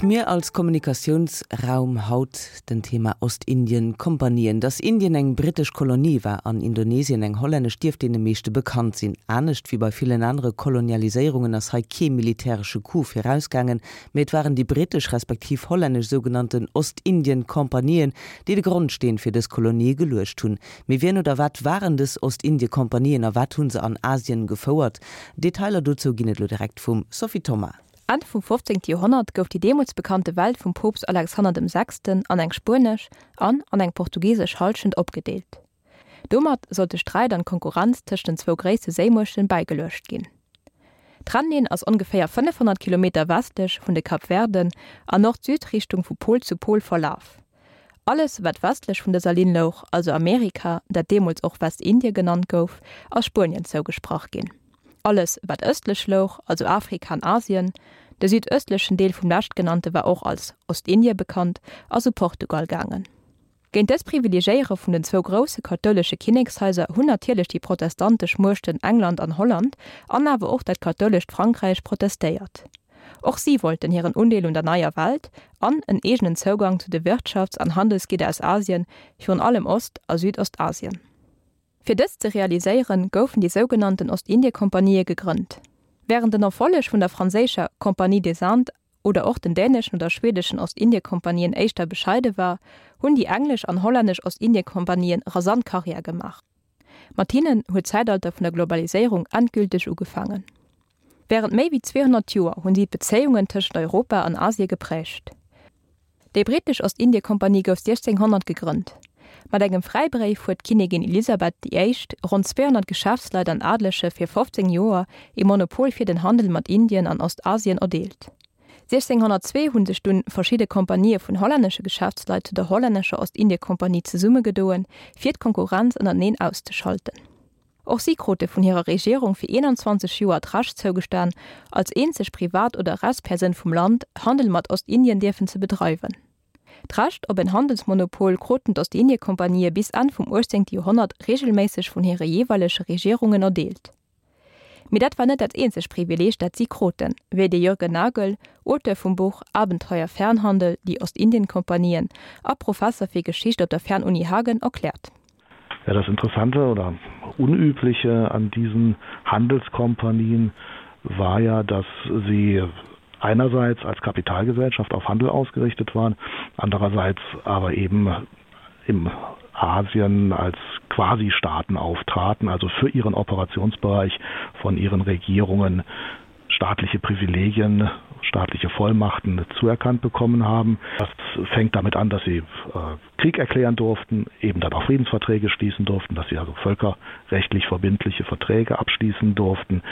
D'Mier als Kommunikatiounsraum, haut den Thema Ostindien-Kompanien. Dass Indien eng brittesch Kolonie war an Indonesien eng hollännesch, dierft deene meeschte bekannt sinn. Anescht wéi bei villen anere Kolonialiséierungen ass hei kee militäresche Coup virausgaangen, mee et waren déi brittesch respektiv hollännesch sougenannten Ostindien-Kompanien, déi de Grondsteen fir dës Kolonie geluecht hunn. Mee wien oder wat waren dës Ostindie-Kompanien a wat hu se an Asien gefouert? Detailer dozou ginn et elo direkt vum Sophie Thoma. Enn vum 15. Joerhonnert gouf déi deemools bekannte Welt vum Poopst Alexander dem Sechsten an eng spuenesch an an eng portugisesch Hallschent opgedeelt. Domat sollt de Sträit an d'Konkurrenz tëscht den zwou gréisste Séimuechten bäigeluecht ginn. D'Trennlinn ass ongeféier 500 Kilometer westlech vun de Kapverden an Nord-Süd-Richtung vu Pol zu Pol verlaf. Alles wat westlech vun dëser Linn louch, also Amerika, dat deemools och Westindie genannt gouf, ass Spuenien zougesprach ginn. Alles wat ëstlech louch, also Afrika an Asien, de südëstlechen Deel vum leschtgenannte war och als Ostindie bekannt, ass u Portugal gaangen. Géint dës Privilegéiere vun den zwou grousse kathoulesche Kinnekshaiser hunn natierlech déi protestantesch Muechten England an Holland an awer och dat kathoulescht Frankräich protestéiert. Och si wollten hiren Undeel un der neier Welt an en eegenen Zougang zu de Wirtschafts an Handelsgidder aus Asien, virun allem Ost a Südostasien. Fir dëst ze realiséieren, goufen déi sougenannten Ostindiekompanië gegrënnt. Wärend den Erfolleg vun der franséischer Compagnie des Indes oder och den däneschen oder schwedeschen Ostindiekompanien éischter bescheide war, hunn déi englesch an hollännesch Ostindiekompanien rasant Karriär gemaach. Mat hinnen huet d'Zäitalter vun der Globaliséierung endgülteg ugefaangen. Wärend méi wéi 200 Joer hunn si d'Bezéiungen tëschent Europa an Asie geprägt. Déi brittesch Ostindiekompanie gouf 1600 gegrënnt. Mat engem Fräibréif huet d'Kinnigin Elisabeth déi Éischt ronn 200 Geschäftsleit an Adelege fir 15 Joer ee Monopol fir den Handel mat Indien an Ostasien erdeelt. 1602 hu sech dunn verschidde Kompanië vun hollännesche Geschäftsleit zu der hollännescher Ostindiekompanie zesummegedoen, fir d'Konkurrenz ënnerteneen auszeschalten. Och si krute vun hirer Regierung fir 21 Joer d'Recht zougestan, als eenzeg Privat oder Rechtspersoun vum Land Handel mat Ostindien dierfen ze bedreiwen. D'Recht op en Handelsmonopol kruten d'Ostindiekompanië bis Enn vum 18. Joerhonnert reegelméisseg vun hire jeeweilege Regierungen erdeelt. Mee dat war net dat eenzegt Privileeg, dat si kruten, wéi de Jürgen Nagel, Auteur vum Buch Abenteuer Fernhandel, Die Ostindien-Kompanien a Professer fir Geschicht op der Fernuni Hagen, erkläert. Ja, das Interessante oder Unübliche an diesen Handelskompanien war ja, dass sie einerseits als Kapitalgesellschaft auf Handel ausgerichtet waren, andererseits aber eben im Asien als Quasistaaten auftraten, also für ihren Operationsbereich von ihren Regierungen staatliche Privilegien, staatliche Vollmachten zuerkannt bekommen haben. Das fängt damit an, dass sie äh, Krieg erklären durften, eben dann auch Friedensverträge schließen durften, dass sie also völkerrechtlich verbindliche Verträge abschließen durften,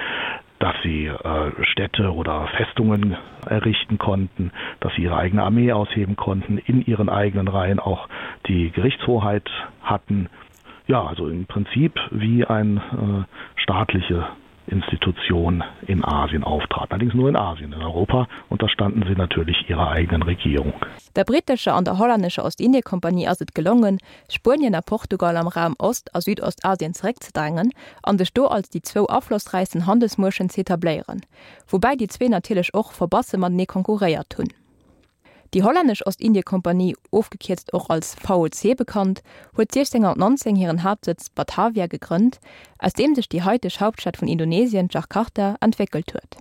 dass sie äh, Städte oder Festungen errichten konnten, dass sie ihre eigene Armee ausheben konnten, in ihren eigenen Reihen auch die Gerichtshoheit hatten. Ja, also im Prinzip wie ein äh, staatliche Institution in Asien auftrat. Allerdings nur in Asien. In Europa unterstanden sie natürlich ihrer eigenen Regierung. Der brittescher an der hollännescher Ostindiekompanie ass et gelongen, Spuenien a Portugal am Raum Ost a Südostasien zeréckzedrängen an sech do als déi zwou aflossräichsten Handelsmuechten z'etabléieren, woubäi déi zwee natierlech och verbasse matenee konkurréiert hunn. Déi hollännesch Ostindiekompanie, ofgekierzt och als VOC bekannt, huet 1619 hiren Haaptsëtz Batavia gegrënnt, aus deem sech déi haiteg Hauptstad vun Indonesien, Jakarta, entwéckelt huet.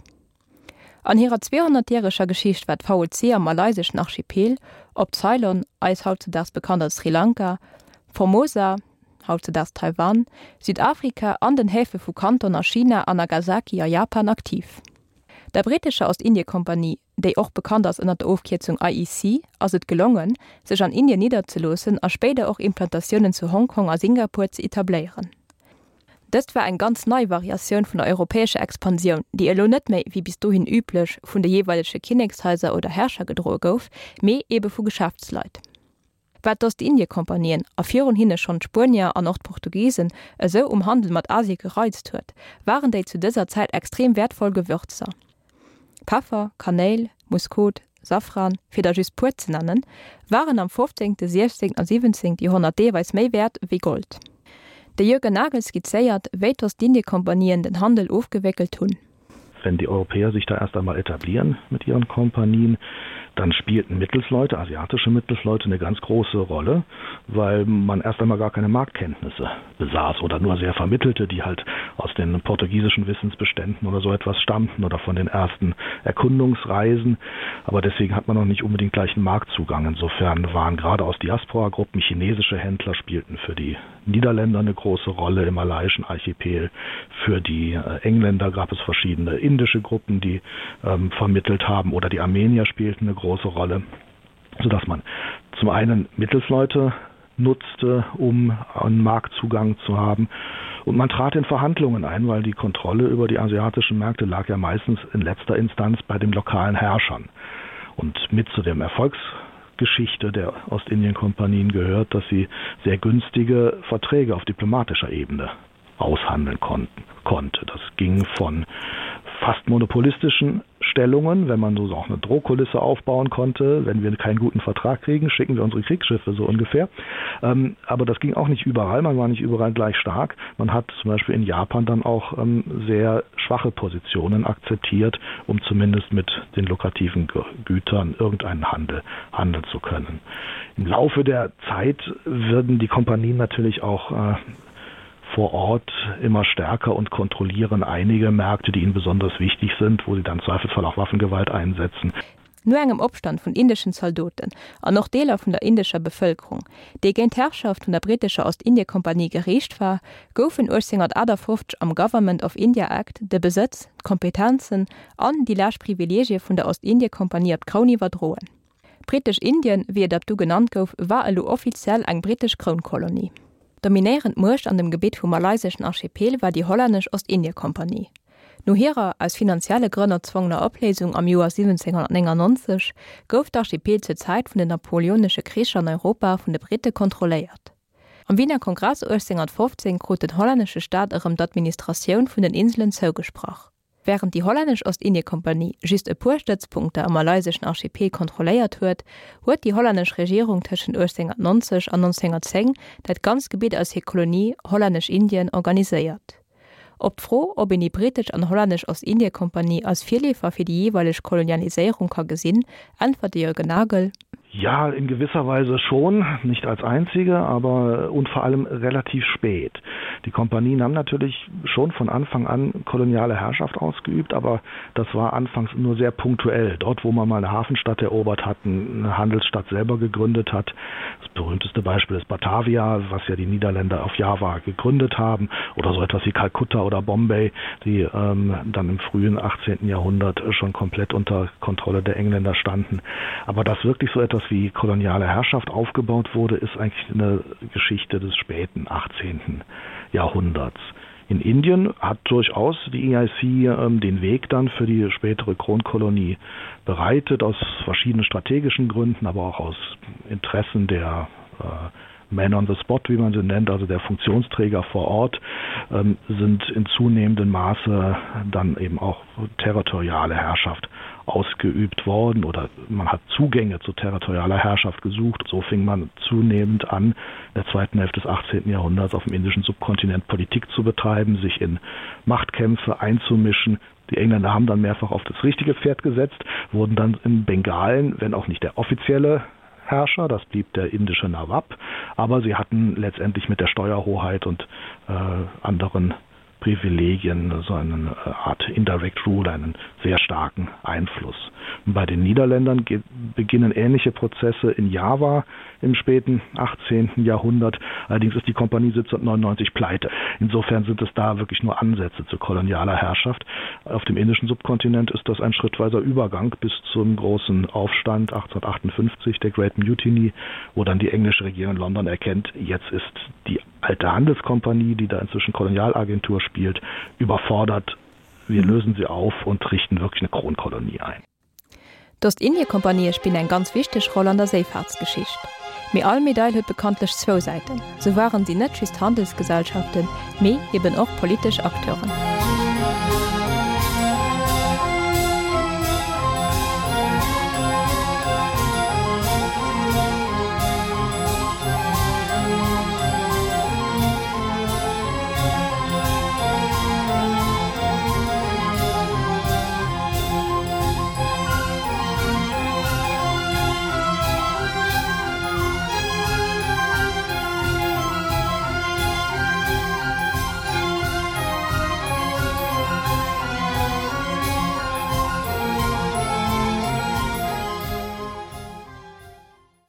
An hirer 200-järeger Geschicht war d'VOC am malayseschen Archipel, op Ceylon, eis hautzedaags bekannt als Sri Lanka, Formosa, hautzedaags Taiwan, Südafrika an den Häfe vu Kanton a China an Nagasaki a Japan aktiv. Der brittescher Ostindiekompanie, déi och bekannt ass ënner der Ofkierzung IEC, ass et gelongen, sech an Indien nidderzeloossen a spéider och Implantatiounen zu Hongkong a Singapur ze etabléieren. Dëst war eng ganz nei Variatioun vun der europäescher Expansioun, déi elo net méi, wéi bis dohin üblech, vun de jeeweilege Kinnekshaiser oder Herrscher gedroe gouf, mee ebe vu Geschäftsleit. Wat d'Ostindiekompanien, a virun hinne schonn d'Spuenier an och d'Portugisen, esou um Handel mat Asie gereizt huet, waren déi zu dëser Zäit extrem wäertvoll Gewürzer. Peffer, Kanéil, Muskot, Safran, fir der just puer ze nennen, waren am 15., 16. a 17. Joerhonnert deelweis méi wäert wéi Gold. De Jürgen Nagel skizzéiert, wéi d'Ostindiekompanien den Handel ofgewéckelt hunn. Wenn die Europäer sich da erst einmal etablieren mit ihren Kompanien, dann spielten Mittelsleute, asiatische Mittelsleute eine ganz große Rolle, weil man erst einmal gar keine Marktkenntnisse besaß oder nur sehr vermittelte, die halt aus den portugiesischen Wissensbeständen oder so etwas stammten oder von den ersten Erkundungsreisen. Aber deswegen hat man noch nicht unbedingt gleichen Marktzugang. Insofern waren gerade aus Diasporagruppen chinesische Händler spielten für die Niederländer eine große Rolle im malaiischen Archipel. Für die äh, Engländer gab es verschiedene indische Gruppen, die ähm, vermittelt haben oder die Armenier spielten eine große Rolle, sodass man zum einen Mittelsleute nutzte, um einen Marktzugang zu haben. Und man trat in Verhandlungen ein, weil die Kontrolle über die asiatischen Märkte lag ja meistens in letzter Instanz bei den lokalen Herrschern. Und mit zu dem Erfolgsgeschichte der Ostindien-Kompanien gehört, dass sie sehr günstige Verträge auf diplomatischer Ebene aushandeln konnten konnte. Das ging von fast monopolistischen Stellungen, wenn man so auch eine Drohkulisse aufbauen konnte, wenn wir keinen guten Vertrag kriegen, schicken wir unsere Kriegsschiffe so ungefähr. Ähm, aber das ging auch nicht überall, man war nicht überall gleich stark. Man hat zum Beispiel in Japan dann auch ähm, sehr schwache Positionen akzeptiert, um zumindest mit den lukrativen Gütern irgendeinen Handel handeln zu können. Im Laufe der Zeit würden die Kompanien natürlich auch äh, vor Ort immer stärker und kontrollieren einige Märkte, die ihnen besonders wichtig sind, wo sie dann zweifelsfall auch Waffengewalt einsetzen. No engem Opstand vun indeschen Zaldoten an och Deeler vun der indescher Bevëlkerung, déi géint d'Herrschaft vun der brittescher Ostindiekompanie geriicht war, goufen 1858 am Government of India Act de Besëtz, d'Kompetenzen an déi lescht Privileegie vun der Ostindiekompanie op d'Kroun iwwerdroen. Britesch-Indien, wéi et ab du genannt gouf, war elo offiziell eng brittesch Krounkolonie. Dominéierend Muecht an dem Gebitt vum malayseschen Archipel war déi hollännesch Ostindiekompanie. No hirer, aus finanzielle Grënn erzwongener Opléisung am Joer 1799 gouf d'Archipel zur Zäit vun den napoleonesche Kricher an Europa vun de Britte kontrolléiert. Am Wiener Kongress 1815 krut den hollännesche Staat erëm d'Administratioun vun den Inselen zougesprach. Wärend déi hollännesch Ostindiekompanie just e puer Stëtzpunkter am malayseschen Archipel kontrolléiert huet, huet déi hollännesch Regierung tëschent 1890 an 1910 dat ganzt Gebitt als hir Kolonie Hollännesch-Indien organiséiert. Op d'Fro, ob een déi brittesch an hollännesch Ostindiekompanie als Virleefer fir déi jeeweileg Kolonialiséierung ka gesinn, äntwert de Jürgen Nagel. Ja, in gewisser Weise schon, nicht als einzige, aber und vor allem relativ spät. Die Kompanien haben natürlich schon von Anfang an koloniale Herrschaft ausgeübt, aber das war anfangs nur sehr punktuell. Dort, wo man mal eine Hafenstadt erobert hat, eine Handelsstadt selber gegründet hat. Das berühmteste Beispiel ist Batavia, was ja die Niederländer auf Java gegründet haben oder so etwas wie Kalkutta oder Bombay, die ähm, dann im frühen 18. Jahrhundert schon komplett unter Kontrolle der Engländer standen. Aber dass wirklich so etwas wie koloniale Herrschaft aufgebaut wurde, ist eigentlich eine Geschichte des späten 18. Jahrhunderts. In Indien hat durchaus die EIC ähm, den Weg dann für die spätere Kronkolonie bereitet, aus verschiedenen strategischen Gründen, aber auch aus Interessen der äh, Men on the Spot, wie man sie nennt, also der Funktionsträger vor Ort, ähm, sind in zunehmendem Maße dann eben auch territoriale Herrschaft ausgeübt worden oder man hat Zugänge zu territorialer Herrschaft gesucht. So fing man zunehmend an, in der zweiten Hälfte des 18. Jahrhunderts auf dem indischen Subkontinent Politik zu betreiben, sich in Machtkämpfe einzumischen. Die Engländer haben dann mehrfach auf das richtige Pferd gesetzt, wurden dann in Bengalen, wenn auch nicht der offizielle Herrscher, das blieb der indische Nawab, aber sie hatten letztendlich mit der Steuerhoheit und äh, anderen Privilegien, so eine äh, Art Indirect Rule, einen sehr starken Einfluss. Und bei den Niederländern beginnen ähnliche Prozesse in Java im späten 18. Jahrhundert. Allerdings ist die Kompanie 1799 pleite. Insofern sind es da wirklich nur Ansätze zu kolonialer Herrschaft. Auf dem indischen Subkontinent ist das ein schrittweiser Übergang bis zum großen Aufstand 1858 der Great Mutiny, wo dann die englische Regierung in London erkennt, jetzt ist die alte Handelskompanie, die da inzwischen Kolonialagentur spielt, überfordert. Wir lösen sie auf und richten wirklich eine Kronkolonie ein. D'Ostindiekompanië spillen eng ganz wichteg Roll an der Séifaartsgeschicht. Mee all Medail huet bekanntlech zwou Säiten. Sou waren si net just Handelsgesellschaften, mee eben och politesch Acteuren.